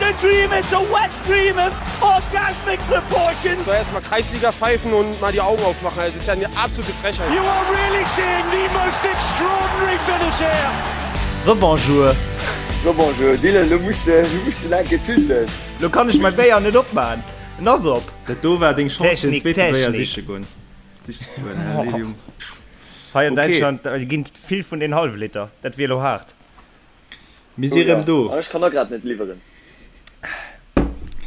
a dream, it's a wet dream of orgasmic proportions. Soll erst mal Kreisliga pfeifen und mal die Augen aufmachen, das ist ja eine absolute Frechheit. You are really seeing the most extraordinary finish here. Rebonjour. Rebonjour Dylan, lo muss de, lo muss de enke zünden. Lo kann ech mäi Béier net opmaan, en ass op. Dat do war deng Chance fir den Technik, zweete Béier Technik. siche goen. Sichen ze goen, hä Lilium? Hei an Okay. Däitschland ginn vill vun den Hallwliter, dat wier lo haart. Mir si Oh rëm ja, do. an ech kann och grad net liwweren.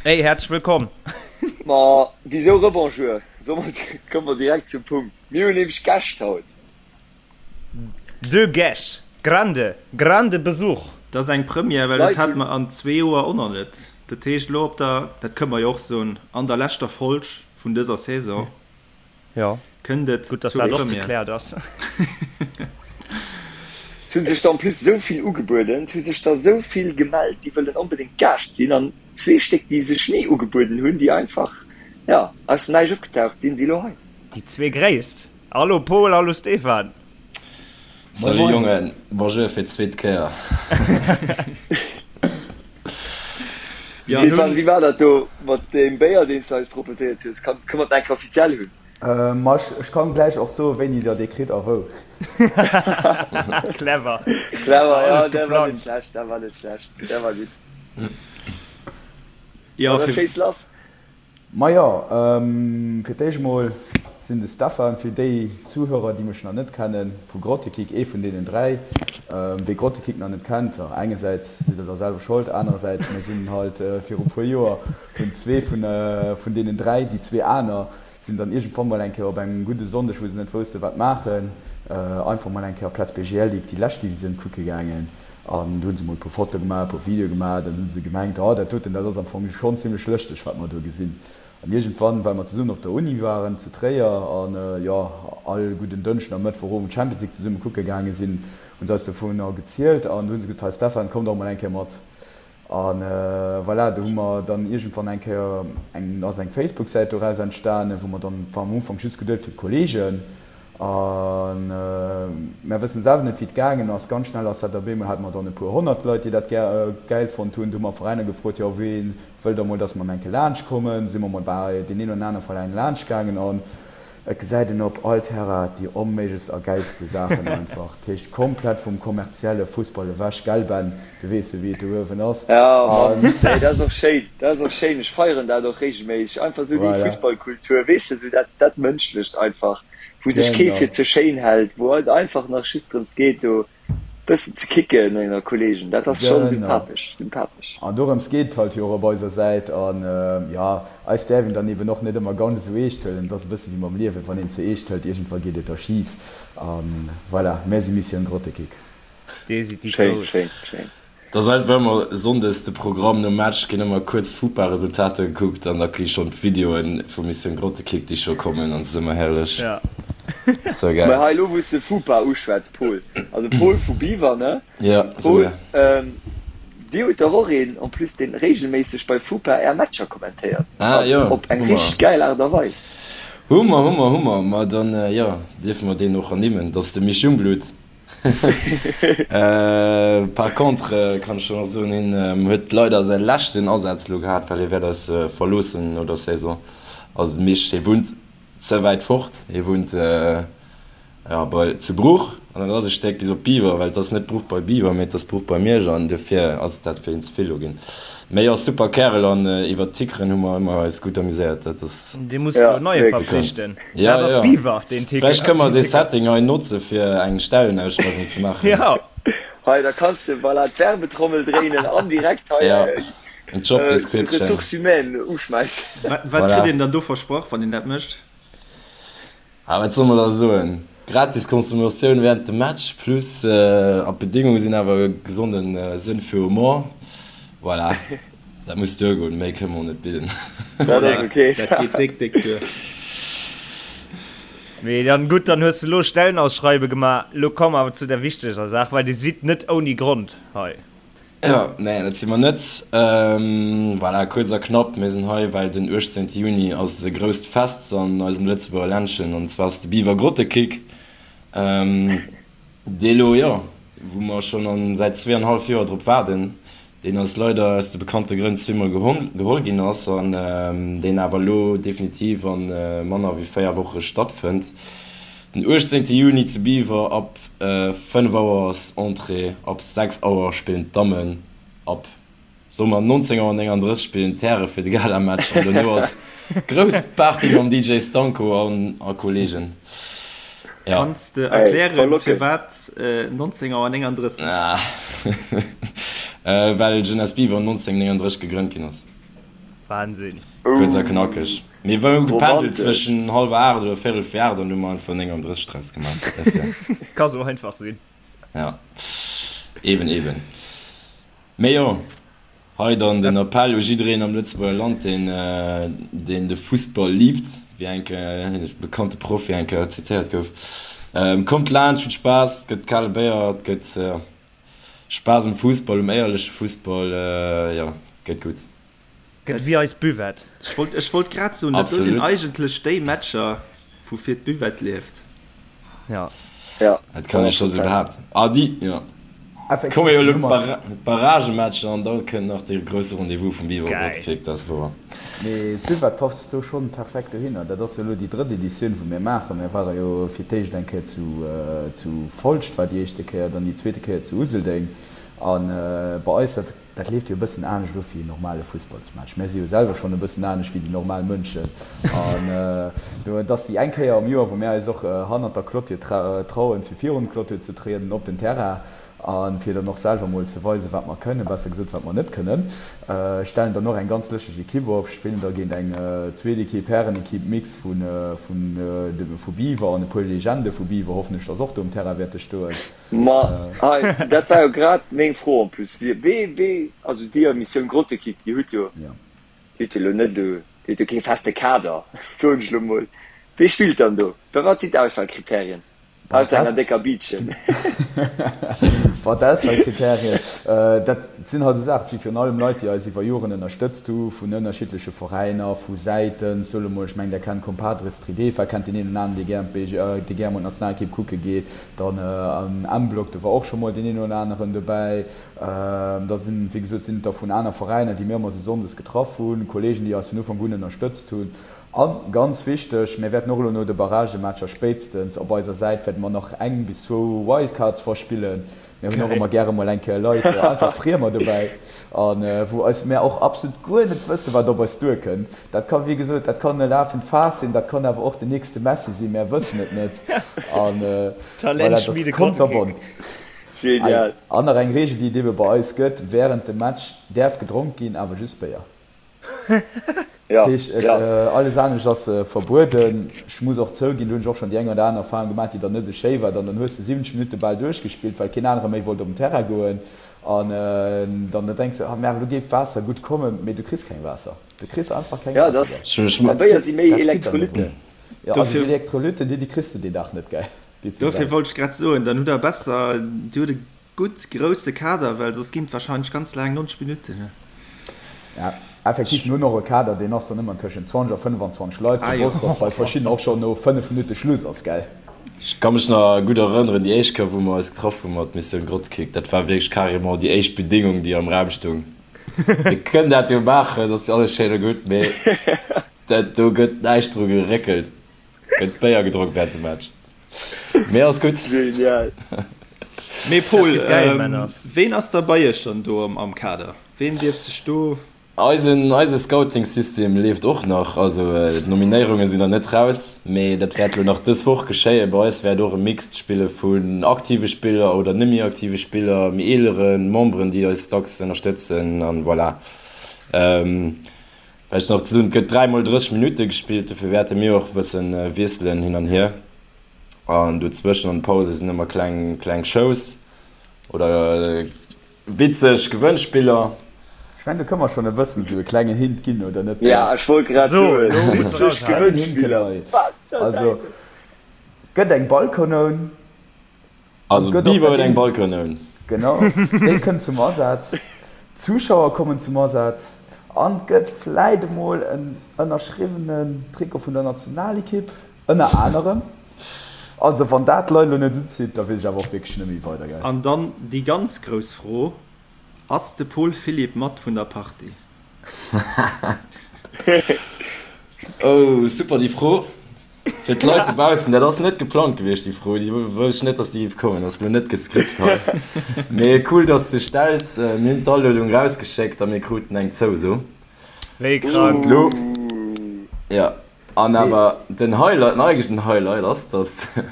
Hey, häerzlech wëllkomm. Ma wisou Rebonjour? Soe mer, komme mer direkt zum Punkt. Mir hunn nämlech Gäscht haut. Deux Gäscht, grande, grande Besuch. Dat ass eng Première, well dat Leit hate hunn. mer an zwee Joer och nach net. Dat heescht elo op der, dat kënne mer jo och soen, an der leschter Folg vun dëser Saison Jo, kënnt et gutt, dass zur dat och Première. gekläert ass. Et hu sech der en plus esou vill ugebueden, et hu sech der esou vill gemellt, déi wëllen onbedéngt Gaascht sinn, an zwee Stéck, déi sech ni ugebueden hunn, déi einfach, jo, aus dem Näischt opgetaucht sinn, si elo hei. Déi zwee Gréisst. Hallo Paul, hallo Stéphane. Moin Salut moin. Jongen, bonjour fir d'zweet Kéier. Jo, Stéphane, nun. wéi war dat do mat deem Béier, deen s de eis proposéiert hues? Kann, kënne mer dat eng Kéier offiziell hunn? Ma ech kann gläich och soen, wéini der dee kritt a wou. Clever. Clever, jo, Alles dat war net geplangt. schlecht, dat war net schlecht, dat war gutt. Jo, Ma da fir. schéiss lass. Majo, fir d'éischt mol sinn de Stephan, fir déi Zuhörer déi mech nach net kennen, vu Grottekick, ee vun deenen 3. Wee Grottekick nach net kennt, jo engersäits sidd der da selwer Schold, anerersäits mir sinn halt viru puer Joer hunn zwee vun vun deenen 3, déi zwee aner sinn dann iergendwann mol eng Kéier op engem gudde Sonndeg wou se net wousste wat maachen, einfach mol eng Kéier op Plaz BGL Ligue déi lescht Divisioun kucke gaangen. An do hunn se mol e puer Fotoe gemaach, e puer Videoe gemaach. Dann hu se gemengt, oh dat doten, dat ass am Fong schonn zimlech lëschteg, wat mer do gesinn. An iergendwann, well mer zesummen op der Uni waren zu Tréier an, jo, all gudden Dënschden a Mëttwochowend Champions League zesumme kucke gaange sinn, hu se eis dovunner gezielt an du hu se gesot, hei Stephan, komm dach mol eng Kéier mat. A voilà, do hu mer dann iergendwann eng Kéier eng, ass eng Facebook-Säit doraus entstanen, wou mer dann, war am Ufank just geduet fir d'Kollegen, a mär wëssen selwer net wéi et gaangen ass, ganz schnell ass dat op eemol, hate mer dann e puer 100 Leit, déi dat gär, gäil fonnt hunn. Du hu mer Veräiner gefrot, jo ween wëll da mol, datt mer eng Kéier laanscht kommen. Du si mer mol bei deen een oder anere Veräin laanscht gaangen an Et gesäit een op all Terrain déi onméiglechst a gäilste Saachen einfach. Dat heescht komplett vum kommerzielle Fussball ewech, gell Ben? Du weess jo wéi et do uewen ass. Jo Mann, nee dat ass och schéin, dat ass och schéin. Ech feieren dat och regelméisseg, einfach esou déi Voilà. Fussballkultur, weess de, esou dat dat Mënschlecht einfach, wou sech kee Genau. fir ze schéin hält, wou et einfach nach just drëms geet do Bëssen ze kicken ënner Kollegen, dat ass schonn Genau. sympathesch, sympathesch. An dorëms geet et halt jo och op eiser Säit. An jo, eis däerf een dann eben och net ëmmer ganz esou eescht huelen. Et ass e bësse wéi mam Liewen, wann een ze eescht hëlt, iergendwa geet et da schif. A voilà, mär si Mission Grottekick. Dir sidd déi Schéin, Grouss. schéin, schéin. Et ass einfach ëmmer Sonndes de Programm, nom Match ginn ëmmer kuerz d'Fupa-Resultater gekuckt an da gi schonn d'Videoen vu Mission Grottekick déi scho kommen an et ass ëmmer herrlech. Ja. Sou Mä gäil. hei elo wou s de Fupa uschwätz, Paul, also Paul vu Biwer, ne? Ja, sou Paul, gär. ähm, dir hutt dach och een en plus deen regelméisseg bei Fupa är Matcher kommentéiert Ah an jo, op eng hu mer. richteg gäil Aart a Weis. Hu mer, hu mer, hu mer. Ma dann, jo, dierfe mer deen och ernimmen. Dat ass de Misch Jungblut. Par contre kann ech schon och soen, hien huet leider säi leschten Asaz elo gehat, well hie wäert eis verloossen no der Saison. Also de Misch, hie wunnt ze wäit fort, hie wunnt jo bei zu Bruch an dat ass e Stéck bis op Biwer, well et ass net Bruch bei Biwer, mee et ass Bruch bei Miersch an dofir ass dat fir hien ze vill elo ginn. Mee jo, super Kärel an iwwert d'Tickeren hu mer ëmmer eis gutt amuséiert, dat ass. Dir musst elo Ja, neie wierklech. verpflichten. Ja, Dat ass ja. Biwer, deen Ticker. Vläicht kënne mer dee Setting hei notze fir eng Stellenausschreiwung ze maachen. Ja. Hei, da kanns de voilà d'Werbetrommel dréinen an direkt hei Ja, en Job Description. Ressources humaines uschmäissen. Wat, wat Voilà. kritt een dann do versprach, wann een dat mécht? Ah, wat soll mer da soen? Gratis Consommatioun während dem Match plus, an d'Bedingunge sinn awer e gesonden Sënn fir Humor. Voilà, dat muss duergoen, méi kënne mer och net bidden. Dat ass ok. Dat geet déck, déck duer. Mee dann gutt, dann hues de lo Stellenausschreibe gemaach. Lo komme mer awer zu der wichteger Saach, well dir sidd net ouni Grond hei. Jo, nee, dat si mer net. Voilà, kuerz a knapp, mir sinn hei, well den 18 Juni ass e grousst Fest an eisem Lëtzebuerger Ländchen, an zwar ass de Biwer Grottekick, dee lo, jo, wou mer schonn an säit zweeanenhallef Joer drop waarden. Deen eis leider aus de bekannte Grënn zweemol geholl ginn ass an deen awer elo definitiv a manner wéi 4 Woche stattfënnt. Den 18 Juni zu Biwer ab 5 Auer ass Entrée, ab 6 Auer spillen d'Dammen, ab soe mer 19 Auer 39 spillen d'Häre fir de Galamatch an dono ass grouss Party mam DJ Stanko an a Kollegen. Ja. Kanns de erklären firwat 19 Auer 39? Well Jeunesse Biwer 1939 gegrënnt ginn ass. Wahnsinn. Kuerz a knackeg. Mir hu gependelt zwëschen hallwer 8 oder véirel vir 8 an hu mer einfach 39 draus gemaach. Ka sou einfach sinn. Ja, eben, eben. Mee jo. Hei dann den Appell u jiddereen am Lëtzebuerger Land, deen deen de Fussball liebt, wéi eng e bekannte Profi eng Kéier zitéiert gouf, Kommt laanscht, hutt Spaass, et gëtt kale Béier, et gëtt Spaass um Fussball, um éierleche Fussball, jo, et gëtt gutt. Gëtt wéi eis Buvette. Ech wollt, ech wollt grad soen, dat do sinn eigentlech déi Matcher, woufir d'Buvette lieft. Ja. Ja. Dat kann ech scho sou behaapten. Ah, déi, jo. Effektiv, Komme jo den elo Numm ass. d'Barragematcher an da kënnt nach dee grousse Rendez-vous vum Biwer Geil. Grottekick, dat ass wouer. Mee d'Buvette passt do schonn perfekt dohinner. Dat ass jo elo déi drëtt Editioun, wou mir maachen. Mir ware jo fir d'éischt eng Kéier zu, zu Folscht war déi éischte Kéier, dann déi zweete Kéier zu Useldeng. A bei eis, dat. Dat leeft jo e bëssen anescht of wéi en normale Fussballsmatch. Mär si jo selwer schonn e bëssen anescht wéi déi normal Mënschen. An et ass déi eng Kéier am Joer, wou mär eis och hannert der Clôture trauen, fir virun d'Clôture ze trieden op den Terrain a fir dann och selwer mol ze weisen, wat mer kënnen, besser gesot, wat mer net kënnen. Stellen dann och eng ganz lëschteg Ekipp op, spillen da géint eng zweet Ekipp, Härenekipp, Mix vu Biwer an e puer Legende vu Biwer hoffen ech, dass och do um Terrain wäerte stoen. Ma hei, dat war jo grad meng Fro en plus. Wee, wee, also dir, Missioun Grottekick, dir hutt jo, dir hutt jo elo net esou, dir hutt jo kee feste Kader, soen ech elo mol. Wee spillt dann do? Wat sinn d'Auswahlkriterien, ausser enger décker Biitchen? Bon, d'Auswahlkriterien, dat sinn halt esou Saachen, et si virun allem Leit, déi eis iwwer Joren ënnerstëtzt hu vun ënnerschiddleche Veräiner, vu Säiten, soe mol, ech mengen, der kennt Compadres Tridefa, kennt deen een oder aneren, dee gär, dee gär mol d'Nationalekipp kucke geet. Dann am M-Block, do war och scho mol deen een oder aneren dobäi. Da sinn, wéi gesot, sinn et der vun aner Veräiner, déi mir ëmmer esou sonndes getraff hunn, Kolleegen, déi eis vun Ufank un ënnerstëtzt hunn. A ganz wichteg, mir wäerten och elo no de Barragematcher spéitstens op eiser Säit wäerte mer nach eng bis zwou Wildcards verspillen. Mir hunn och ëmmer gäre mol eng Kéier Leit, einfach Friemer dobäi, a wou eis mär och absolut guer net wëssen, wat op eis duerkënnt. Dat ka wéi gesot, dat kann e lafend Faass sinn, dat kann awer och den nächste Messi sinn, mär wëssen et net. An voilà, dat ass konterbont. Genial. An nach eng Reegel, déi et ebe bei eis gëtt, Wärend dem Match däerf gedronk ginn, awer just Béier. Ja, Dat heescht, et, ja. alles anescht ass verbueden. Ech muss och zouginn, do hunn ech och schonn déi eng oder aner Erfahrung gemaach, déi dann net esou schéi war. Dann dann hues de 70 Minutte bal duerchgespillt, well keen anere méi wollt op den Terrain goen. An dann da denks de, ah merde, elo géif Waasser gutt kommen, mee du kriss keng Waasser. Du kriss einfach keng Ja, Waasser. das, Ech, a Dat Béier zitt, si méi dat zitt dann Elektrolyten. dovun. Jo, also déi Dofir, Elektrolytten, déi, déi kriss de deen Dag net, gell, déi s de dofir brauchs. wollt ech grad soen, dann hutt der besser, dir hutt e Gutt grousse Kader, well soss ginn et wahrscheinlech ganz laang 90 Minutten. Ja, effektiv, mir hunn och e Kader, deen ass dann ëmmer tëschent 20 a 25 Leit. Ah jo. Bewosst, dass bei verschiddenen och schonn no 5 Minutte Schluss ass, gell? Ech ka mech nach gutt erënneren, déi éischt Kéier, wou mer eis getraff hu mat Missioun Grottekick, dat war wierklech carrément déi éischt Bedingung, déi am Raum stoung, Mir kënnen dat jo maachen, dat ass jo alles schéin a gutt, mee dat do gëtt näischt dru geréckelt, gëtt Béier gedronk während dem Match. Mee ass gutt. Genial. Mee Paul, Dat gëtt geil, Männers. ween ass da bei iech dann do am Kader? Ween dierf sech do. Eisen eise Scouting-System leeft och nach, also d'Nominéierunge sinn nach net raus, mee dat wäert elo nach dës Woch geschéien. Bei eis wäert och e Mixed spille vun aktive Spiller oder net méi aktive Spiller, méi eelere Memberen, déi eis dacks ënnerstëtzen an voilà. Vläicht nach ze soen, et gëtt 3 mol 30 Minutte gespillt, dofir wäerte mir och e bëssen wiesselen hin an hier. An dozwëschen an de Pause sinn ëmmer kleng, kleng Shows oder witzeg Gewënnspiller. Ech mengen, do kënne mer schonn e bëssen esou e klengen Hint ginn, oder net? Ja, ech wollt grad So, soen, elo muss witzeg eraushauen. Klengen Hint kënne Gewënnspiller, mer. wat der Also, Däiwel! gëtt eng Ballkanoun. Also Gëtt och Beaver dat huet eng een. Ballkanoun. Genau, déi kënnt zum Asaz, d'Zuschauer kommen zum Asaz an et gëtt vläit emol en ënnerschriwwenen Trikot vun der Nationalekipp, ënner anerem. Also wann dat d'Leit elo net unzitt, da weess ech awer och wierklech net méi weider, gell. An dann déi ganz grouss Fro. Ass de Paul Philipp mat vun der Partie? Oh, super déi Fro. Fir d'Leit dobaussen, dat ass net geplangt gewiescht déi Fro, déi wousst ech net, datt déi géif kommen, ass elo net gescript hei. Mee cool, datt s de stells. Mir hunn d'Aluedung rausgeschéckt a mir kruten eng Zouso. Wéi krank. Elo, jo. An awer den Highlight, den eigentlechen Highlight ass, datt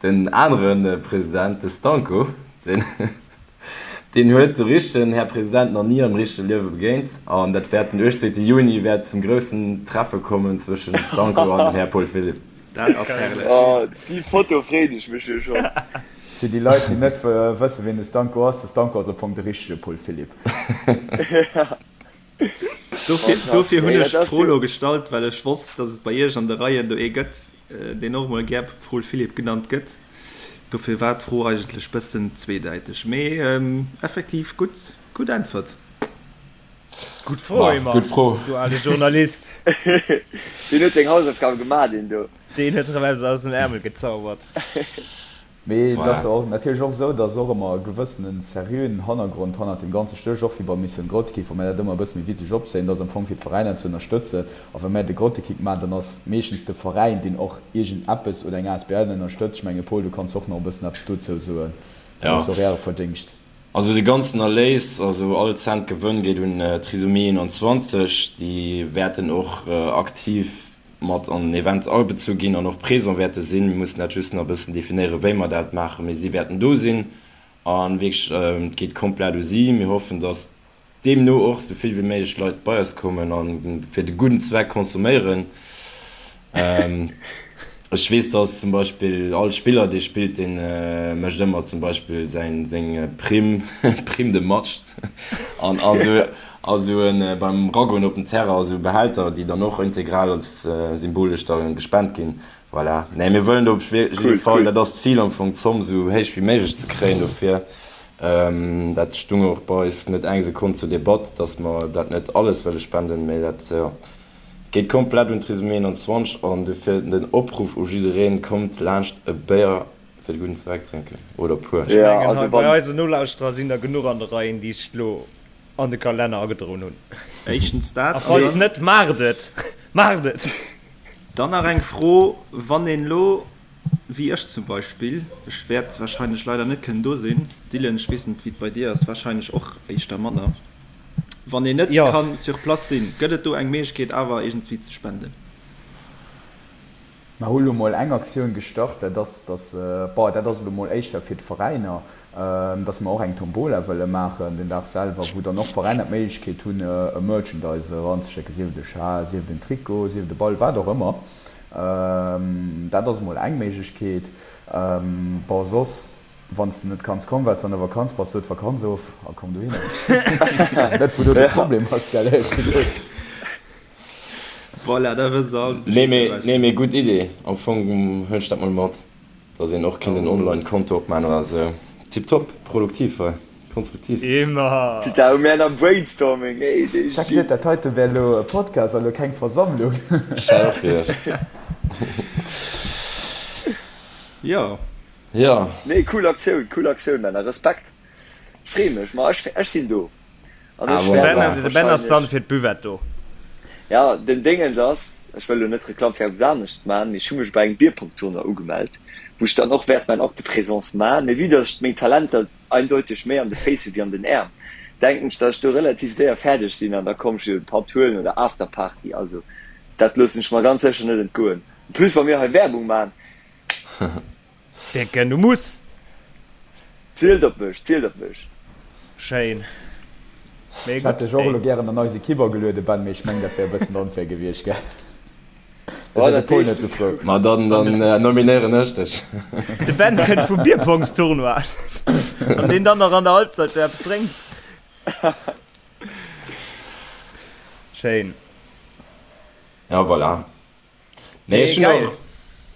den anere President, de Stanko, deen, deen huet de richtegen Här President nach ni am richtege Liewe begéint. An dat wäert den 18 Juni wäert zum groussen Treffe kommen zwëschen dem Stanko an dem Här Paul Philipp. Dat ass herrlech. Oh, déi Foto freeën ech mech jo schonn. Fir déi Leit, déi net wëssen, wien de Stanko ass, de Stanko ass am Fong de richtege Paul Philipp. Dofir hunn ech d'Fro lo gestallt, well ech wosst, datt et bei Iech an de Reien do ee gëtt, deen och emol gär Paul Philipp genannt gëtt. Dofir war d'Fro eigentlech bëssen zweedäiteg. Mee effektiv gutt, gutt Äntwert. Gutt Fro, Emma, du ale Journalist. Deen huet seng Hausaufgabe gemaach, deen do. Deen huet erëm eppes aus dem Äermel gezaubert. Mee et ass och natierlech och esou, dass och ëmmer e gewëssene seriöen Hannergrond hannert deem Ganze stécht, och wéi bei Mission Grottekick, wou mär dat ëmmer e bësse méi witzeg opzéien. Dat ass am Fong fir d'Veräiner ze ënnerstëtzen. A wa mär de Grottekick maachen, dann ass meeschtens de Veräin, deen och iergend eppes oder eng asbl ënnerstëtzt. Ech menge Paul, du kanns och nach e bëssen eppes dozou soen. Dat ass och Äre Verdéngscht. Also de ganzen Erléis, also all Cent Gewënn geet un Trisomie 21. Déi wäerten och aktiv mat an den Event agebezu ginn an och présent wäerte sinn. Mir mussen dat just nach e bëssen definéieren, wéi mer dat maachen, mee si wäerten do sinn a wierklech, et geet komplett u si. Mir hoffen, dass deemno och esou vill wéi méiglech Leit bei eis kommen a fir de gudden Zweck consomméieren. Ech weess, dass zum Beispill all Spiller, dee spillt, dee mécht ëmmer zum Beispill säin, seng Prime, Prime de match an a sou en beim Ragoen op den Terrain a sou Behälter, déi dann och integral als symbolesch da gespent ginn. Voilà. Nee, mir wëllen do op jidde Fall, dat ass d'Zil am Fong, d'Zomm sou héich wéi méiglech ze kréien dofir. Dat stung och bei eis net eng Sekonn zur Debatt, dass mer dat net alles wëlle spenden, mee dat, jo. Geet komplett un Trisomie 21 an dofir den Opruff u jiddereen, kommt laanscht e Béier fir de gudden Zweck drénken oder puer. Ech mengen hei bei eisen Nolauschterer sinn der genuch an de Reien déi sech lo an de Kalenner agedroen hunn. Éischtens dat A falls net, maacht et! Maacht et! Dann nach eng Fro, Wann een lo, wéi ech zum Beispill, ech wäert wahrscheinlech leider net kënnen do sinn, Dylan, ech weess net wéi et bei dir ass, wahrscheinlech och éischter manner, Wann een net kann sur place sinn, gëtt et do eng Méiglechkeet awer iergendwéi ze spenden? Mer hu lo mol eng Aktioun gestart, dat ass, dass, bon, dat ass elo mol éischter fir d'Veräiner, dass mer och eng Tombola wëlle maachen den Dag selwer, wou dann och d'Veräiner d'Méiglechkeet hunn, e Merchandise eranzeschécken, sief et e Schal, sief et en Trikot, sief et e Ball, wat och ëmmer. Dat ass mol eng Méiglechkeet. Bon, soss. Wann s de net kanns kommen, well s de an der Vakanz bass, so d'Vakanz of a komm dohinner. Weess net, wou do de Problem ass, gell, éierlech gesot. Voilà, da wësst der all Nee, Bescheed mee, nee, mee gutt Idee. Am Fong huelen ech dat mol mat, dass een och kinnt en Online-Konto opman oder sou. Tiptop, produktiv hei, konstruktiv. Immer! Putain, hu mär nach Brainstorming, ey, dee Check net, dat heite wär elo e Podcast a lo keng Versammlung. Ech hat och geduecht. Jo. Jo. Nee cool Aktioun, cool Aktioun Männer, Respekt, ech free mech, ma ech ech sinn do an ech wäert och De Ben ass dann fir d'Buvette do. Ja, den Déngens ass, ech wëll lo net Reklamm fir eppes anescht man, mee ech hu mech bei engem Bierpong-Tournoi ugemellt, wou ech dann och wäert mäin Acte de présence man, mee vue dass ech meng Talenter eindeuteg méi an de Féiss hu wéi an den Äerm, denken ech, dass ech do relativ séier fäerdeg sinn an da komm ech jo e Patt huelen oder Afterparty, also dat loossen ech mer ganz sécher net entgoen, en plus wa mir hei Werbung man. Décken, du muss! Zielt op mech, zielt op mech! Schéin. Mee Ech hätt dech och elo gären an eis Equipe agelueden, Ben, mee ech mengen, dat wär e bëssen onfair gewiescht, gell? Da wär de Paul net sou frou. Ma dann nominéieren ech dech. De Ben kënnt vum Bierpongstournoi. Wann deen dann nach an der Halbzeit do eppes drénkt. Schéin. Ja, voilà. Nee, ech hunn och,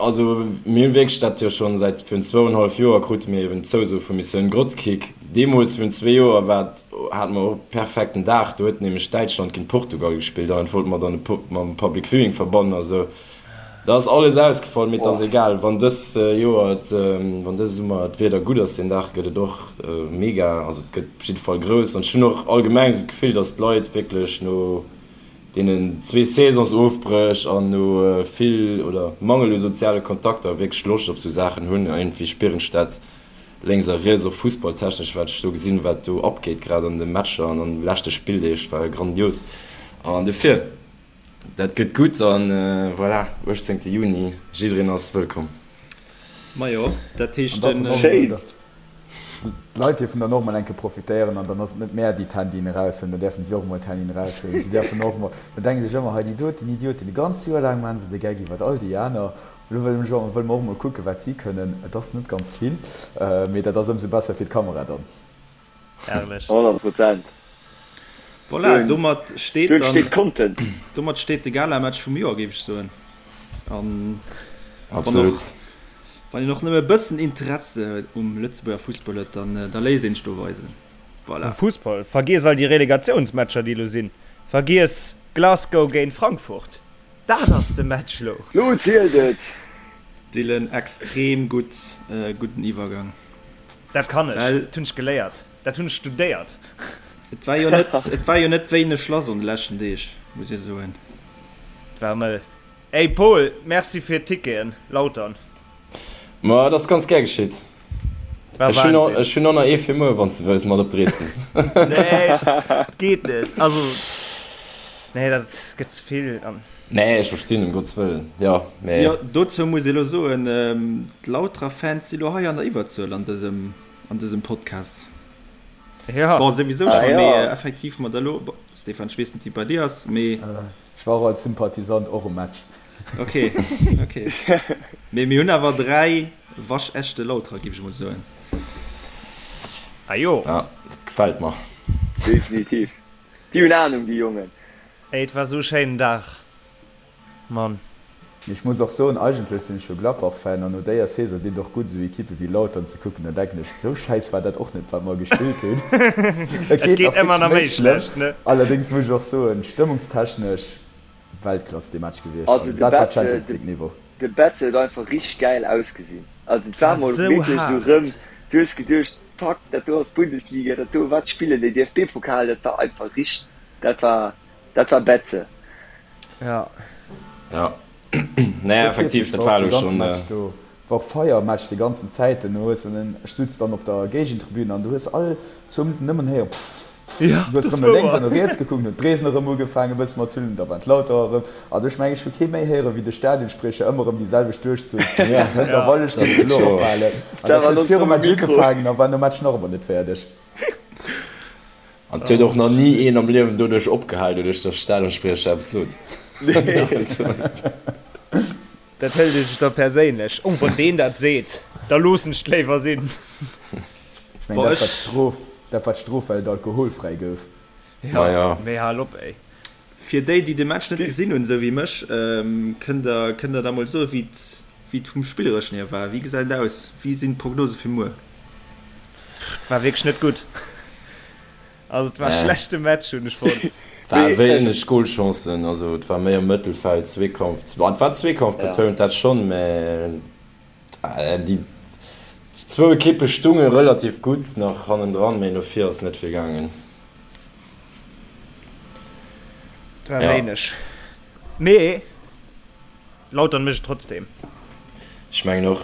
also mir hunn wierklech dat jo schonn säit virun zwouenhallef Joer krute mir eben d'Zouso vu Missioun Grotkick. Deemools virun zwee Joer war et, hate mer och e perfekten Dag, do huet nämlech Däitschland géint Portugal gespillt an dat wollte mer dann mam Public Viewing verbannen a sou. Da ass alles ausgefall, mee et ass egal. Wann dës Joer et, wann dëse Summer d'Wieder gutt ass, deen Dag gëtt et och mega, also et gëtt op jidde Fall grouss. An ech hunn och allgemeng esou d'Gefill, datt d'Leit wierklech no deenen zwee Saisonsofbréch an no vill oder Mangel u soziale Kontakter wierklech Loscht op esou Saachen hunn. Iergendwéi spieren ech dat lénks a riets, och fussballtechnesch, wat ech do gesinn, wat do abgeet, grad an de Matcher an an de leschte Spilldeeg, war grandios. An dofir. Dat gëtt gutt an voilà, 18 Juni, jiddereen ass wëllkomm. Majo, dat heescht den. Schéin! D'Leit dierfen dann och mol eng Kéier profitéieren an dann ass et net mär, déi d'Handyen eraushuelen, da däerfen si och mol d'Handyen eraushuelen. Si däerfen och mol, da denke sech ëmmer, hei déi doten Idioten, e ganzt Joer laang maache se de Geck iwwert all déi aner, elo wëlle mech och, wëlle mer och mol kucken, wat si kënnen. Et ass net ganz vill, mee dat ass ëmsou besser fir d'Kamera dann. Herrlech. 100 Prozent. Voilà, domat steet dann, steet Content. Domat steet de Galamatch vum Joer, géif ech soen. An Absolut. Wann een och nëmme e bëssen Interesse um Lëtzebuerger Fussball huet, dann da léisst een sech do weisen. Voilà. Um Fussball? Vergiess all déi Relegatiounsmatcher, déi elo sinn. Vergiess Glasgow géint Frankfurt. Dat ass de Match lo. Lo zielt et! Dylan, extrem gutt, gudden Iwwergang. Dat kann ech, dat hunn ech geléiert, dat hunn ech studéiert. Et war jo net, et war jo net wéineg lass an de leschten Deeg, muss ee soen. Et war mëll. Ey Paul, merci fir d'Ticketen, Lautern. Ma et ass ganz gär geschitt. Et war Ech hunn Wahnsinn. ech hunn och nach ee fir muer, wann s de wëlls, mat op Dresden. Nee, et geet net. Also, nee, dat gëtt ze vill an. Nee, ech verstinn, ëm Gottes Wëllen, jo, mee. Jo, dozou muss ee lo soen, d'Lauterer Fans si lo hei an der Iwwerzuel an dësem, an dësem Podcast. Jo. Bon, souwisou Ah schonn, jo. mee effektiv mat elo, bon, Stéphane, ech weess net, wéi et bei dir ass, mee. Ech war och als Sympathisant och um Match. Ok, ok. Mee mir hunn awer 3 waschechte Lauterer, géif ech mol soen. Ah jo. Ja, dat gefält mer. Definitiv. Déi hunn Ahnung, déi Jongen. Ey, et war sou schéinen Dag, Mann. Mee ech muss och soen, eigentlech sinn ech jo Gladbach-Fan an no déier Saison dinn et och gutt esou Equippe wéi Lautern ze kucken. Da denken ech, esou schäiss war dat och net wat mer gespillt hunn. Et Et geet geet nach ëmmer wierklech nach méi méi schlëmm. schlecht, ne? Allerdéngs muss ech och soen, stëmmungstechnesch Weltklass dee Match gewiescht. Also Also de dat war Betze, Champions de League Niveau. de Betze huet einfach richteg gäil ausgesinn. Also et Et war war mol sou wierklech esou haart. rëm, du hues geduecht, fuck, dat do ass Bundesliga, dat do, wat spillen déi, DFB-Pokal, dat war einfach richteg, dat war, dat war Betze. Ja. Ja. Nee, Huet effektiv, wierklech, dat war war och de elo ganze schonn. Match do, war och Feier am Match déi ganzen Zäit. Du hues en, ech sutz dann op der Géigentribün an du hues all zwou Minutten nëmmen héieren pfff, pfff. Ja, Du hues dat erëm war no lénks an wouer. no riets gekuckt, hunn d'Dresden erëm ugefaangen e bësse mat z'hullen, da waren d'Lauterer erëm. Also ech mengen, ech hu kee méi héieren, wéi de Stadionspriecher ëmmer erëm déi selwecht Duerchzuel zu Ja, Hënt a Ja. Wallesch dat géif ass elo wierklech wouer. ophalen. An Dat dat war huet nonstop virum um Match Mikro. ugefaangen a war nom Match nach ëmmer net fäerdeg. An et huet och nach ni een am Liewen doduerch opgehal, doduerch datt Stadionspriecher eppes sot. Dat hëlt ee sech da perséinlech. Oh, wann deen dat seet, da loossen ech et léiwer sinn. Ech mengen, dat war d'Strof, dat war d'Strof, well et alkoholfräi gouf. Jo, mee hal op, ey. Fir déi, déi de Match net gesinn hunn, esou wéi mech, kënnt der, kënnt der da mol soen, wéi et, wéi et vum Spillereschen hier war? Wéi gesäit et aus? Wéi sinn d'Prognose fir muer? Et war wierklech net gutt. Also et war e schlechte Match, hunn ech fonnt. War wéineg Golchancen, also et war méi am Mëttelfeld, Zweekampf, et war Zweekampf betount, dat schonn, mä déi zwou Ekippe stunge relativ gutt nach hannendran, mä no vir ass net vill gaangen. Et war wéineg, mee Lautern mécht et trotzdem. Ech mengen och.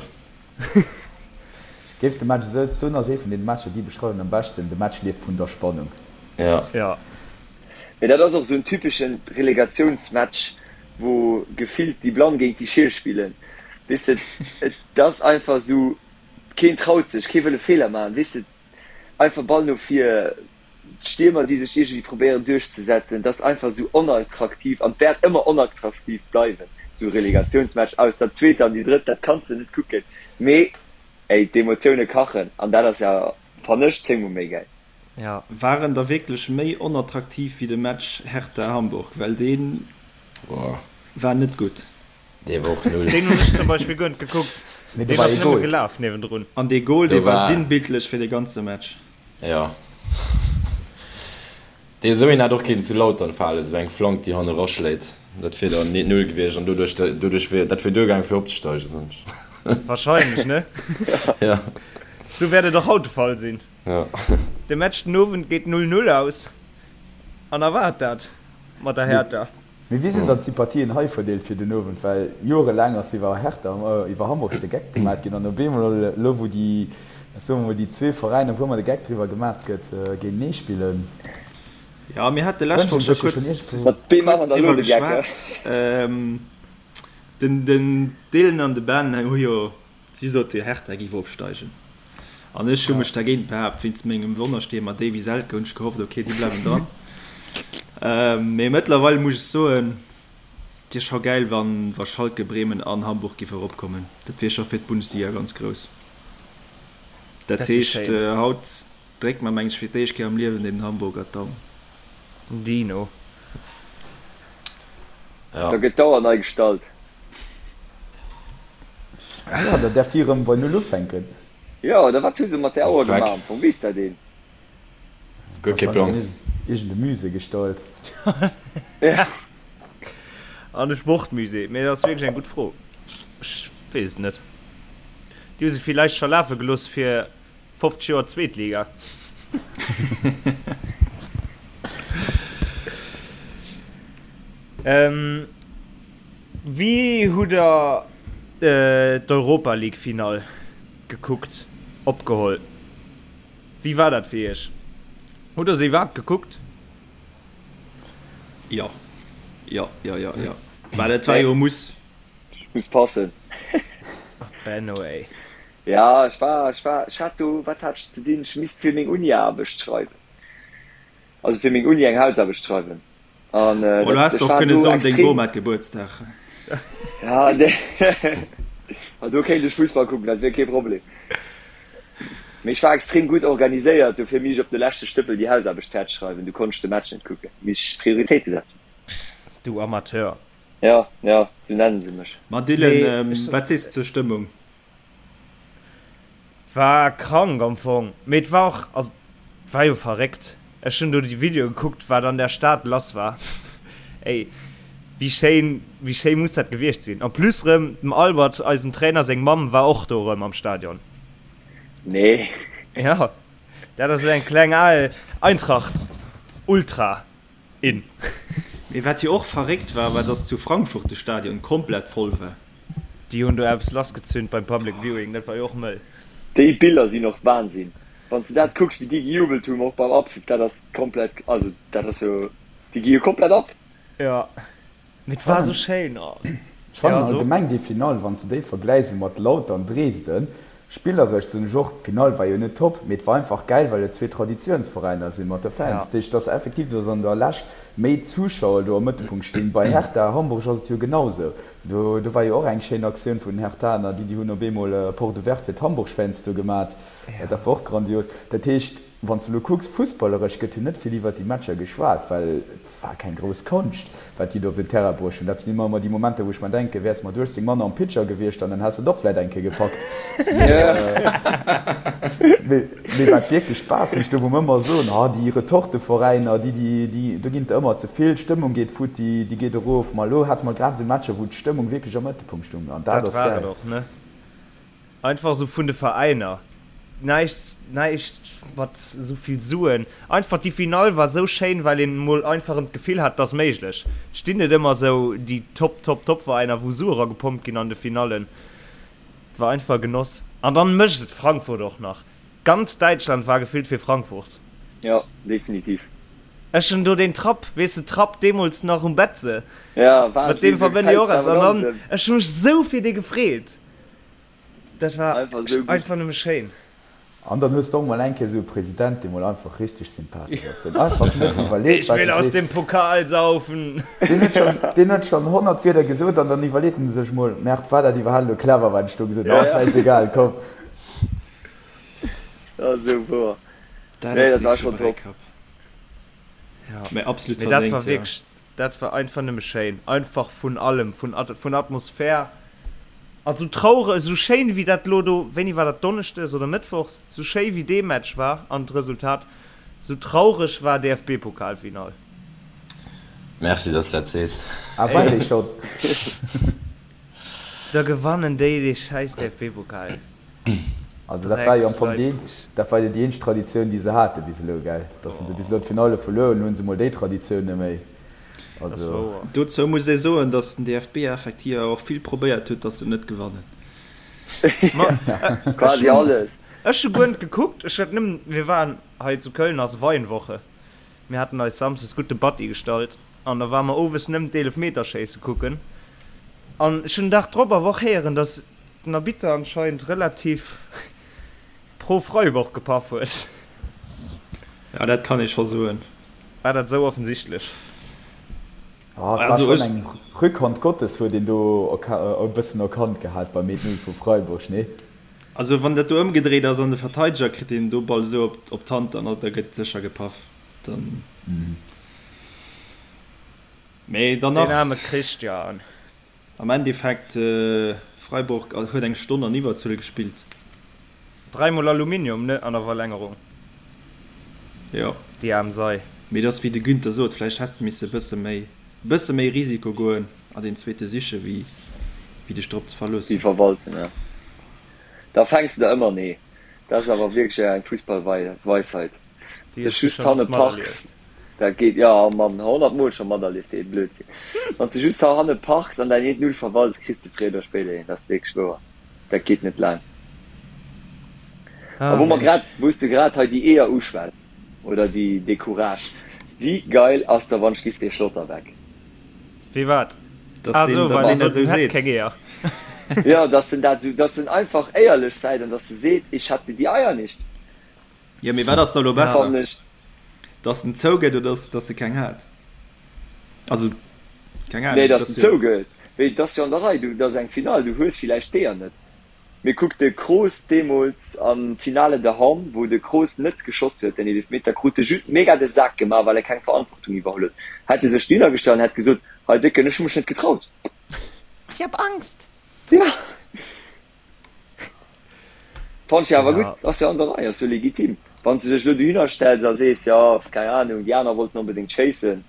Ech géif de Match esou, dun ass ee vun deene Matcher déi beschreiwen am beschten, de Match lieft vun der Spannung. Ja. Ja. Mee dat ass och esou en typeschen Relegatiounsmatch, wou gefillt déi Blann géint déi Schiel spillen, weess de, et ass einfach esou, keen traut sech, kee wëll e Feeler maachen, weess de, einfach Ball no vir, d'Stiermer déi sech iergendwéi probéieren duerchzesetzen, et ass einfach esou onattraktiv an et wäert ëmmer onattraktiv bleiwen, esou Relegatiounsmatch aus der zweeter an déi drëtt, dat kanns de net kucken, mee ey, d'Emotioune kachen an dat ass ja, fannen ech, zéngmol méi gäil. Ja. War en da wierklech méi onattraktiv wéi de Match Hertha-Hamburg? Well dee war net gutt. Dee war och null. Deen hunn ech zum Beispill guer net gekuckt. Mee do Deen war ass ee nëmme Goal. gelaf niewendrun. An dee Goal, Do dee war war. sinnbildlech fir de ganze Match. Jo. Dee esou een hätt och kéinten zu Lautern falen, esou eng Flank, déi hanne raschléit. Dat wier dann 0 gewiescht an doduerch, doduerch wier, dat wier duergaangen fir opzesteigen, soen ech. Wahrscheinlech, ne? Ja. Sou wäert et och haut de Fall sinn. Ja. De Match den Owend geet 0, 0 aus an erwaart dat mat der Hertha. Mee wéi sinn dann d'Sympathien hei verdeelt fir den Owend? Well jorelaang ass iwwer Hertha, iwwer Hamburg de Geck gemat ginn an op eemol elo wou déi, soe mer mol, déi zwee Veräiner wou ëmmer de Geck driwwer gemat gëtt, géintenee spillen, Jo, mir hate lescht Woch wënschen scho sech jo schonn kuerz, iergendwou. Mat deem kuerz maachen der elo driwwer de Geck, geschwat. Den, den Dylan an de Ben hu jo, si sote Hertha géif opsteigen an ech hu mech dergéint behaapt wéinst mengem Wonnerstiermer Davy Selke hunn ech gehofft, ok, déi bleiwen dran. Mee mëttlerweil muss ech soen, et wier scho gäil, wann, wa Schalke, Bremen an Hamburg géif eropkommen. Dat wier scho fir d'Bundesliga ganz grouss. Dat Dat wier heescht, schéin. haut dréckt mer, meng ech, fir d'éischt Kéier am Liewen den Hamburger d'Daum. Dino. Ja. Da gëtt d'Auer nei gestallt. Ah jo, da däerf déi erëm bei Null ufänken. Jo, oder wat hu se mat där Auer Dreck. gemaach am Fong? Weess dat een? Guer kee Plang. Iergend e Musée gestallt. Ja. An de Sportmusée. Mee dat ass wierklech eng gutt Fro. Ech weess et net. Déi hu se villäicht scho lafe gelooss fir 50 Joer Zweetliga. Wéi hutt der d'Europa League Finall gekuckt, opgeholl? Wéi war dat fir iech? Hutt der se iwwerhaapt gekuckt? Jo, jo, jo, jo, jo. Well et war jo e Muss. Muss passen. Benno ey. Ja, ech war, ech war, ech hat do, wat hat ech ze dinn? Ech misst fir meng Uni-Aarbecht schreiwen, also fir meng Uni eng Hausaarbecht schreiwen. An Bon, du dat, häss ech och war kënne do soen, deng extrem, Bom hat Gebuertsdag. ja, nee, ma do kéint ech Fussball kucken, dat wier kee Problem. Mee ech war extrem gutt organiséiert, dofir misst ech op de leschte Stëppel déi Hausaarbecht fäerdeg schreiwen, du konnt ech de Match net kucken, misst ech Prioritéite setzen. Du Amateur. Ja, ja, sou nennen se mech. Ma Nee, Dylan, ech. wat sees de zur Stëmmung? War krank am Fong, mee et war och, also et war jo verréckt. Ech hunn do déi Videoe gekuckt, wat an der Stad lass war. Ey, wéi schéin, wéi schéi muss dat gewiescht sinn. En plus rëm dem Albert, eisem Trainer, seng Mamm war och do rëm am Stadion. Nee. Jo, dat ass esou eng kleng al Eintracht Ultra. In. Mee wat jo och verréckt war, war dass zu Frankfurt de Stadion komplett voll war. Déi hunn do eppes lassgezünd beim Public Viewing, dat war jo och mëll. Déi Biller sinn och Wahnsinn, wann s de dat kucks wéi déi gejubelt hunn och beim Abpfiff, dat ass komplett, also dat ass jo, déi gi jo komplett ab. Jo, Mee et war sou schéin. Oh. Ech fannen allgemeng déi Finall, wann s de déi vergläichs esou mat Lautern, Dresden, spilleresch soen ech och, d'Finall war jo net top, mee et war einfach gäil, well et zwee Traditiounsveräiner sinn mat de Fans. Dat heescht, et ass effektiv, dass an der Lescht méi Zuschauer do am Mëttelpunkt stinn. Bei Hertha Hamburg ass et jo genau sou. Do do war jo och eng schéin Aktioun vun den Herthaner, déi déi hunn op eemol Porte ouverte fir d'Hamburg-Fans do gemat. Dat war och grandios. Dat heescht, Wann s de elo kucks, fussballeresch gëtt jo net vill iwwert déi Matcher geschwat, well et war keng grouss Konscht, wat déi do op den Terrain bruecht hunn. Dat sinn ëmmer déi Momenter, wou ech mer denken, wäers mat 18 Mann am Pitcher gewiescht an dann häss de et och vläit eng Kéier gepackt. Mee wat wierklech Spaass mécht, do wou mer ëmmer soen, ah déi Retorteveräiner, déi, déi, déi, do ginn et der ëmmer ze vill, d'Stëmmung geet futti, déi geet erof. Ma elo hate mer grad esou Matcher, wou d'Stëmmung wierklech am Mëttelpunkt stung an dat Dat ass war et gäil. och, ne? Einfach esou vun de Veräiner. Näischt, näischt mat esou vill Suen. Einfach déi Finall war esou schéin, well een mol einfach erëm d'Gefill hat, et ass méiglech. Et stinn net ëmmer esou déi Top, Top, Top Veräiner, wou Sue eragepompt ginn an de Finallen. Et war einfach e Genoss. An dann mécht et Frankfurt och nach. Ganz Däitschland war gefillt fir Frankfurt. Jo, definitiv. Ech hunn do deen Trapp, weess de, Trapp deemools nach um Betze. Ja, Mat deem Wahnsinn, verbënne ech och eppes. An dann, ech hu mech esou fir dee gefreet. Dat war Einfach esou gutt. einfach nëmme schéin. An dann hues de och mol eng Kéier esou e President, dee mol einfach richteg sympathesch ass, deen einfach net iwwerleet, Ich wat will e aus seet. dem Pokal saufen. Deen huet schonn, deen huet schonn 100 Wierder gesot an dann iwwerleet en sech mol, Merde, war dat iwwerhaapt elo clever, wat ech do gesot hunn? Ja, Ah, ja. schäissegal, komm. Dat ass esou wouer. Dat Nee, ass dat war wierklech e schonn top. Bräikapp. Ja. Mä absolut Mee dat war verdéngt, ja. wierklech, Dat war einfach nëmme schéin, einfach vun allem, vun vun Atmosphär, an sou traureg, sou schéin wéi dat lo do, wéini war dat, Donneschdes oder Mëttwochs, sou schéi wéi dee Match war an d'Resultat, sou traureg war DFB-Pokalfinall. Merci, dass de dat sees. Ah, war dee schonn? Da gewannen déi dee schäiss DFB-Pokal. Also dat war jo am Fong déi, dat war jo déi eenzeg Traditioun, déi se hate bis elo, gell? Dass se bis elo d'Finalle verluer hunn, elo hu se mol déi Traditioun net méi. Also. Dozou muss ee soen, dass den DFB effektiv awer och vill probéiert huet, dass se net gewannen. Quasi alles. Ech hu guer net gekuckt, ech hat nëmmen, mir waren hei zu Köln ass Weinwoche, mir haten eis samsdes gutt de Batti gestallt an da ware mer owes nëmmen d'Eelefmeterschéisse kucken an ech hunn den Dag drop awer och héieren, dass den Arbitter anscheinend relativ pro Freiburg gepaff huet. Ja, dat kann ee scho soen. War dat esou offensichtlech? Ah, et war schonn eng Rückhand Gottes huet een do e bëssen erkannt gehat beim 1-0 vu Freiburg, nee? Also wann dat do ëmgedréit ass an de Verteideger kritt deen do Ball esou op d'Hand, dann da gëtt sécher gepaff. Dann mee dann nach. Deen aarme Christian. Am Endeffekt, Freiburg huet eng Stonn an Iwwerzuel gespillt. Dräimol Aluminium, ne, an der Verlängerung. Jo. Déi aarm Sei. Mee et ass wéi de Günther sot, vläicht häss de misse e bësse méi, e bësse méi Risiko goen a deen zweete siche wéi wéi dech drop ze Déi verloossen. verwalten, ja. Da fänks de der ëmmer, nee. Dat ass awer wierklech eng Fussballweisheit. Déi Sech hues du just schonn hanne oft parks, materlieft. dat geet, jo Mann, 100 mol scho materlieft dee Blödsinn. Wann s de just hanne parks an däin eent Null verwalts, kriss de fréier oder spéider een. Dat ass wierklech wouer. Dat geet net laang. A Ah wou mer Mensch. grad, wou s de grad hei déi Eeër uschwätz, oder déi, dee Courage, wéi geil ass da wann schliff dee Schlotterbeck? Wéi wat? Dass Ah deen, sou, dass well deen en dat sot, esou en hätt seet. keng Eeër. Jo, dass en dat esou, dass en einfach éierlech säit an dass e seet, ich hatte die Eier nicht. Jo, mee wat ass da elo Ja. besser? Fannen ech. Dass en zougëtt oder dass, dass e keng hat? Also, keng Nee, Ahnung, et dass ass en jo. zougëtt. Mee et ass jo an der Rei, du, et ass eng Finall, du hues villäicht d'Eeër net. Mee kuck de Kroos deemools am Finale de Hamm, wou de Kroos net geschoss huet, den Eelefmeter, krut de Judd mega de Sak gemaach, well e keng Verantwortung iwwerholl huet. Hätt e sech dohinner gestallt an hätt gesot, Hei Décken, ech hu mech net getraut. Ich hab Angst! Ja. Fannt ech awer Ja. gutt, ass jo an der Rei, ass jo legitim. Wann s de dech elo dohinner stells a sees, jo, keng Ahnung, déi aner wollten onbedéngt schéissen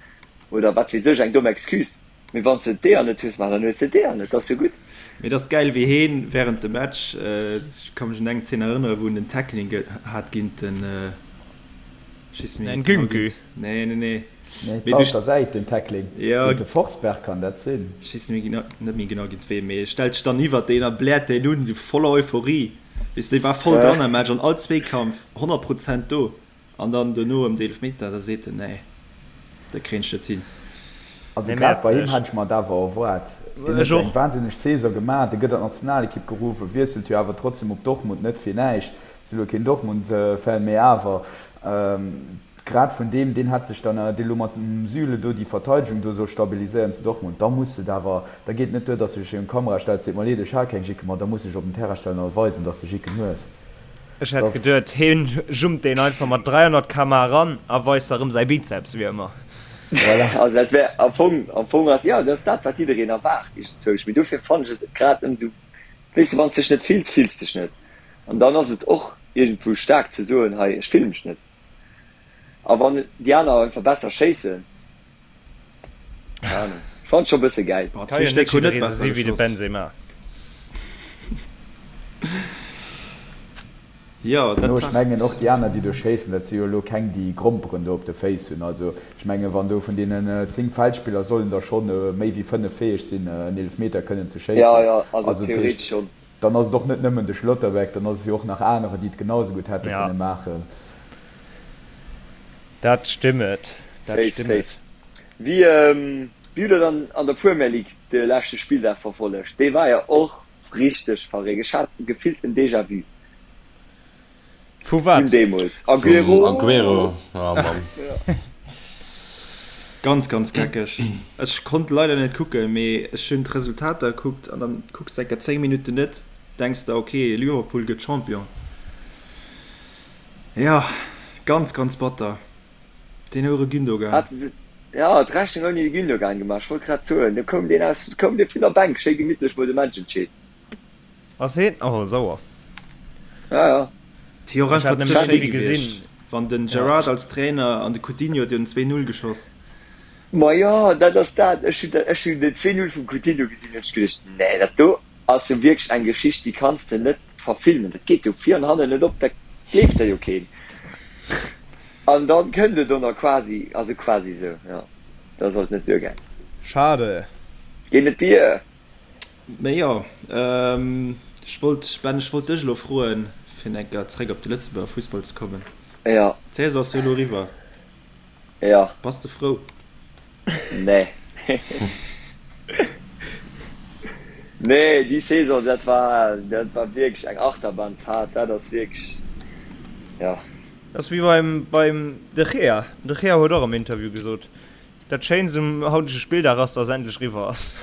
oder wat weess ech, eng domm Excuse. Mee wann s de d'Eeër net hues, ma dann hues de d'Eeër net, dat ass jo gutt. Mee et ass gäil wéi heen während dem Match, ech ka mech un eng Zeen erënneren, wou en den Tackling hat géint den, ech weess net méi genau Nkunku. géint, nee nee nee, Nee, et mee war du, op der Säit den Tackling jo, géint de Forsberg, kann dat sinn? ech weess net méi genau, net méi genau géint ween, mee e stellt sech dann iwwert deen a bläert deen un, esou voller Euphorie, weess de, dee war voll dran am Match an all Zweekampf 100 Prozent do. An dann dono ëm d'Eelfmeter, da seet en, nee, dat kréien ech net hin. Also Dee grad bei him Mäerzeg. hätt ech mer et awer erwaart. Deen Ech huet jo eng och. wahnsinneg Saison gemaach, dee gëtt an d'Nationalekipp geruff, e wiesselt jo awer trotzdem op Dortmund, net fir näischt, si elo keen Dortmund-Fan, mee awer grad vun deem, deen hätt sech dann, dee lo mat dem Süle do déi Verteidegung do soll stabiliséieren zu Dortmund, da muss et awer, da geet et net duer, datt s de dech virun d'Kamera stells, seet, mer leed, ech hat keng Jicken, ma da muss de dech op den Terrain stellen a weisen, datt s de Jicken hues. Ech hätt geduet heen jumpt deen einfach mat 300 km/h eran a weist da rëm säi Bizeps, wéi ëmmer. Voilà. Also dat wär am Fong, am Fong ass, jo, dat ass dat wat jiddereen erwaart iergendzwousch, mee dofir fannen ech et grad ëmsou, weess de, wann s dech net fills, fills dech net an dann ass et och iergendwou staark ze soen, hei ech fille mech net a wann déi aner einfach besser schéissen. Keine Ahnung. Ech fand scho bësse gäil. Boah, Kann zwee jo net Stéck hunn net jidderee sou besser si wéi de geschoss. Benzema. Jo, dat No, ech war. mengen och déi aner, déi do schéissen, dat si jo elo keng, déi Gromperen do op de Féiss hunn. Also ech mengen, wann do vun deenen 10 Feldspiller sollen der schonn méi wéi 5 fäeg sinn, en Eelefmeter kënnen ze Ja, schéissen. ja, also Also dat heescht, theoretesch schonn. dann ass et och net nëmmen de Schlotterbeck, dann ass et jo och nach anerer, déi et genau esou gutt hätte Ja. kënne maachen. Dat stimmet, dat Safe, stimmet. safe. Wéi wéi hutt der dann an der Premier League de leschte Spilldag verfollegt? Dee war jo och richteg verréckt. Ech hat gefillt en Déjà-vu Vu vun wat? deemools. Vum Aguero! Aguero, oh Mann. Ganz ganz geckeg. Ech konnt leider net kucken, mee ech hunn d'Resultater gekuckt an dann kucks de enker 10 Minutten net, denks der ok Liverpool gëtt Champion. Jo, ganz ganz batter, deen houre Gündogan. Haten se jo d'Rechnung ouni de Gündogan gemaach? Ech wollt grad soen, do koum deen aus, koum dee vun der Bänk, schéi gemittlech mol de Match entscheet. Ass heen? Oh sauer. Ja, ja. Et wier och Ech einfach hat ze nämlech schéi net gewiescht, gesinn. wann den Ja. Gerrard als Trainer an de Coutinho huet jo den 2, 0 geschoss. Ma jo, dat ass dat. Ech hunn ech hunn den 2-0 vum Coutinho gesinn, hunn ech geduecht, nee, dat do ass jo wierklech eng Geschicht, déi kanns de net verfilmen. Dat geet jo vir an hannen net op, dat gleeft der jo keen. An dann kënnt et och nach quasi, also quasi esou, jo, da sollt net duergaang. Schade. Geet net dier. Mee jo, ech wollt, Ben, ech wollt dech elo froen, fir eng Kéier zréck op de Lëtzebuerger Fussball ze kommen. Jo. D'Saison ass jo elo eriwwer. Jo. Bass de frou? Nee. Nee, déi Saison, dat war, dat war wierklech eng Achterbahnfahrt. Dat ass wierklech, jo. Dat ass wéi beim, beim De Gea. De Gea huet och am Interview gesot, dat Schéinst um hautege Spilldag ass, dass endlech eriwwer ass.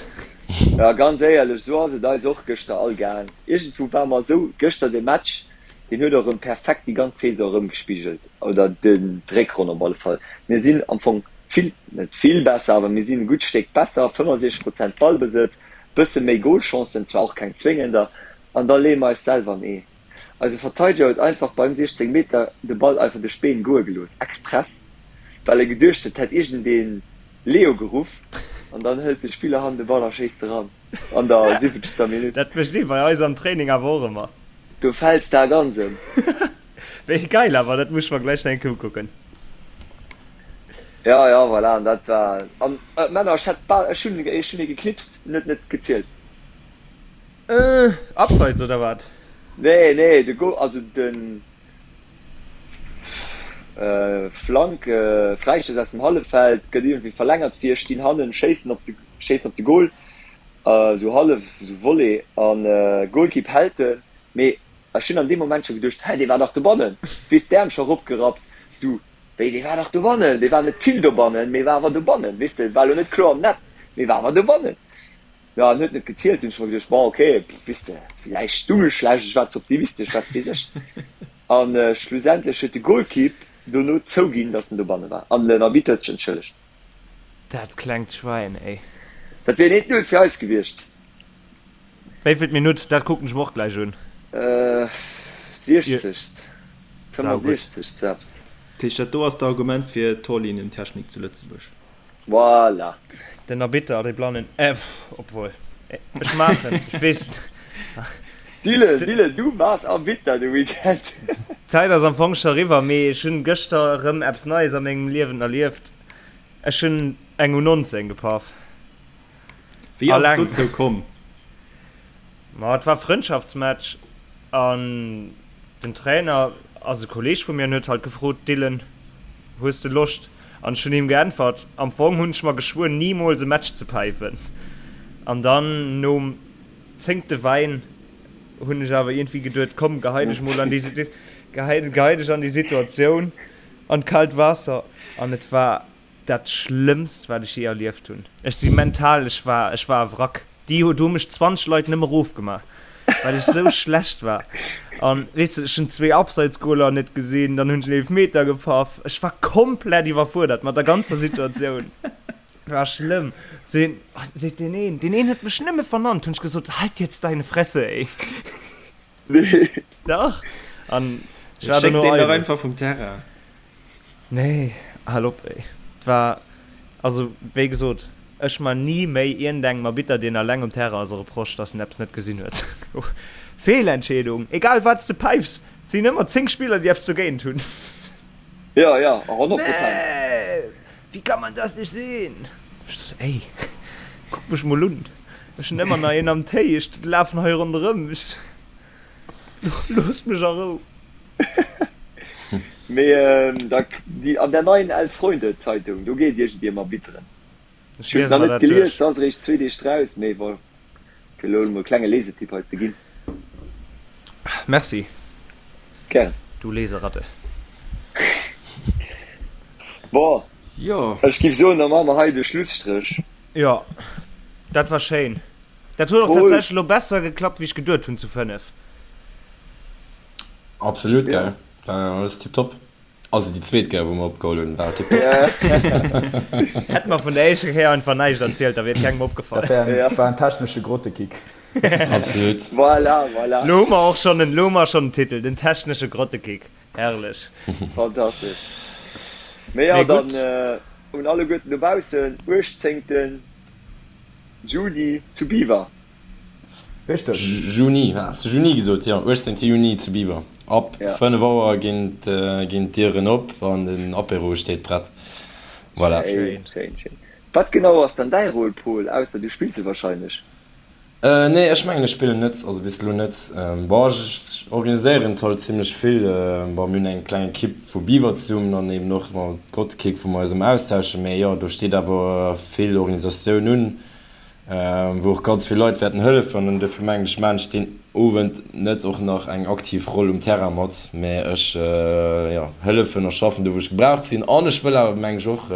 Jo, ganz éierlech, esou ass et eis och gëschter all gaang. Iergendwou ware mer esou, gëschter de Match, Deen huet och erëm perfekt déi ganz Saison erëmgespigelt, oder d'Réckronn op alle Fall. Mir sinn am Fong vill, net vill besser, awer mir sinn e gutt Stéck besser, 65 Prozent Ballbesëtz, bësse méi Golchancen, zwar och keng zwéngender, an da leeë mer eis selwer an Ee. Eise Verteideger huet einfach beim 16 Meter de Ball einfach duerch d'Been goe gelooss, express, well e geduecht huet, hätt iergendeen Leo geruff, an dann hëlt de Spiller hannen de Ball a schéisst eran an der siwwenzegster Minutt. Dat mécht ee bei eis am Training awer och ëmmer. Do fälls de ganz em. Wéi geil awer, dat muss ech mer gläich nach eng Kéier ukucken. Ja, ja, voilà, an dat war, an Männer, ech hätt bal, ech hunn, ech hunn ee geknipst, en huet net gezielt. Äh, Abseits oder wat? Nee, nee, de Goal, also de Flank, Fräistouss aus dem Halleffeld, gëtt iergendwéi verlängert, vir stinn hannen, schéissen op de, schéissen op de Goal. Esou hallef esou Volley an Goalkeep hält en, mee ech hunn an deem Moment scho geduecht, hä dee war dach dobannen, weess d'Äerm scho eropgerappt, sou wéi dee war dach dobannen, dee war net vill dobannen, mee war awer dobannen, weess de, war elo net kloer am Netz, mee war awer dobannen. Jo an huet net gezielt, hunn ech mer geduecht, bon ok, weess de, villäicht stung ech schlecht, ech war ze optimistesch, wat weess ech. An schlussendlech huet de Goalkeep dono zouginn, datt en dobanne war an den Arbitter huet sech entschëllegt. Dat klengt Schwäin, ey. Dat wier een 1, 0 fir eis gewiescht. Wéivilt Minutt? Dat kucken ech mer och gläich un. Siechzegst, 65. Eppes. Dat heescht, dat do ass d'Argument fir Torlinientechnik zu Lëtzebuerg. Voilà. Den Arbitter, dee Blannen, pff, obwuel, ech maachen, ech weess. Dylan, Dylan, du waars Arbitter de Weekend. D'Zäit ass am Fong scho eriwwer, mee ech hunn gëschter erëm eppes Neies a mengem Liewen erlieft. Ech hunn eng U19 gepaff. Wéi ass et dozou komm? Ma et war Frëndschaftsmatch an den Trainer ass e Kolleeg vu mir an huet halt gefrot, Dylan, hues de Loscht? An ech hunn him geäntwert, am Fong hunn ech mer geschwuer nimools e Match ze päifen. An dann nom zéngte Wäin hunn ech awer iergendwéi geduet, komm gehei dech mol an déi, gehei, gehei dech an déi Situatioun. An d'kaalt Waasser an et war dat schlëmmst wat ech je erlieft hunn. Ech si mental, ech war, ech war e Wrack. Déi hu, do hu mech 20 Leit nëmme rofgemaach, well ech sou schlecht war. An weess de, ech hunn zwee Abseitsgoler net gesinn, dann hunn ech en Eelefmeter gepaff. Ech war komplett iwwerfuerdert mat der ganzer Situatioun. War schlëmm. Seen, seet deen een, deen een huet mech nëmme vernannt, hunn ech gesot, halt jetzt deine Fresse, ey. Nee. Dach. An ech war dono eidel. einfach vum Terrain. Nee, hal op ey. Et war, also wéi gesot, ech man ni méi iergendengem Arbitter deen alleng um Terrain ass e Reproche, dass en eppes net gesinn huet. Feelentscheedung, egal wat s de päifs, et sinn ëmmer 10 Spiller déi eppes dogéint hunn. Ja, ja, 100 Prozent. Nee, wie kann man das nicht sehen? Ey, kuck mech mol un. Ech hunn ëmmer nach een am Téi, ech lafen hei ronderëm, ech, loosst mech a Rou. Mee da, déi, an der neien Elf Freunde Zeitung, do geet iergendwéi ëm Arbitteren. Ech Ech hunn et liese nach mer net dat gelies, duerch. se ass eréischt zwee Deeg draus, mee bon, fir elo emol e klenge Lesetipp hei ze ginn. Merci, Gären. du Leseratte. Bon, Jo. ech giff soen, da maache mer hei de Schlusstréch. Jo, dat war schéin. Dat huet och Paul. tatsächlech elo besser geklappt, wéi ech geduet hunn zu 5. Absolut, Ja. gell? War alles tiptop. Also déi zweet Kéier, wou mer opgeholl hunn, war tiptop. Hätt mer vun der éischter Kéier einfach näischt erzielt, da wier et kengem opgefall. Dat wär Ja. war en technesche Grottekick. Absolut. Voilà, voilà. Lo hu mer och schonn en, lo hu mer schonn en Titel, den technesche Grottekick. Herrlech. Fantastesch. Mee jo, Mee dann gutt. un alleguerten dobaussen, 18. Juni zu Biwer. Richteg. Juni, has de Juni gesot? Jo, 18 Juni zu Biwer. Ab 5 Auer ginn d'Dieren op an den Apéro steet prett. Voilà. Schéin, schéin, schéin. Wat genau ass dann däi Rôle, Paul, ausser du spills e wahrscheinlech? Nee, ech mengen ech spillen net, also bis elo net. Bon, ech organiséieren et halt zimlech vill. Bon, mir hunn eng kleng Ekipp vu Biwer zesummen an eben och mat Grottekick, wou mer eis ëmmer austauschen. Mee jo, do steet awer vill Organisatioun un, wou och ganz vill Leit wäerten hëllefen. An dofir mengen ech, maachen ech deen Owend net och nach eng aktiv Roll um Terrain mat, mee ech, jo, hëllefen a schaffen do, wou ech gebraucht sinn. An ech wëll awer, mengen ech, och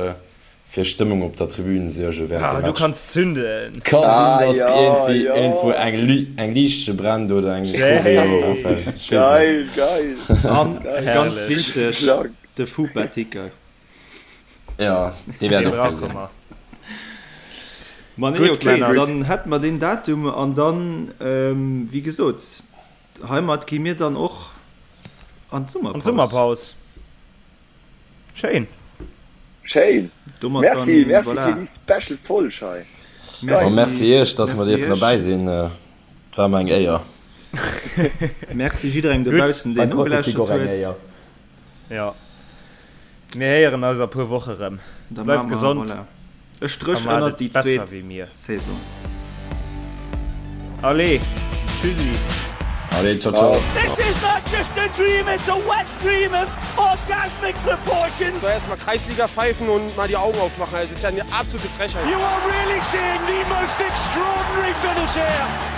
Fir Stëmmung op der Tribün suerge während dem Ah, du Match. kanns zünden. Ka sinn, Ah dass jo, iergendwéi jo. iergendwou eng eng Liichtche brennt oder eng Choreo erofält. Ech weess et net. Geil, geil, An geil. ganz Herrlech. wichteg, Krank. de Fupa-Ticker. Jo, dee wäert Dee och do brauche sinn. mer. Ma nee, Gutt, okay, Männer. dann hätte mer deen Datum an dann, wéi gesot, heimat gi mir dann och an An d'Summerpaus. d'Summerpaus. Schéin. Schéin. Domat Merci, dann, merci voilà. fir déi special Folg hei. Merci, Merci, merci iech, dass mer merci dierfen iech. derbäi sinn. Et war mer eng Éier. Merci jidderengem Gutt. dobaussen, War deen Grottekick nogelauschtert och eng huet. Éier. Jo. Mir héieren eis a puer Woche rëm. Da Bleift maache mer, gesond voilà, e a Stréch maacht ënnert et déi besser zweet wéi mir. Saison. Allez, tschüssi. Allez, ciao, ciao. This is not just a dream, it's a wet dream of orgasmic proportions. So erstmal Kreisliga pfeifen und mal die Augen aufmachen. Das ist ja eine absolute Frechheit. You are really seeing the most extraordinary finish here.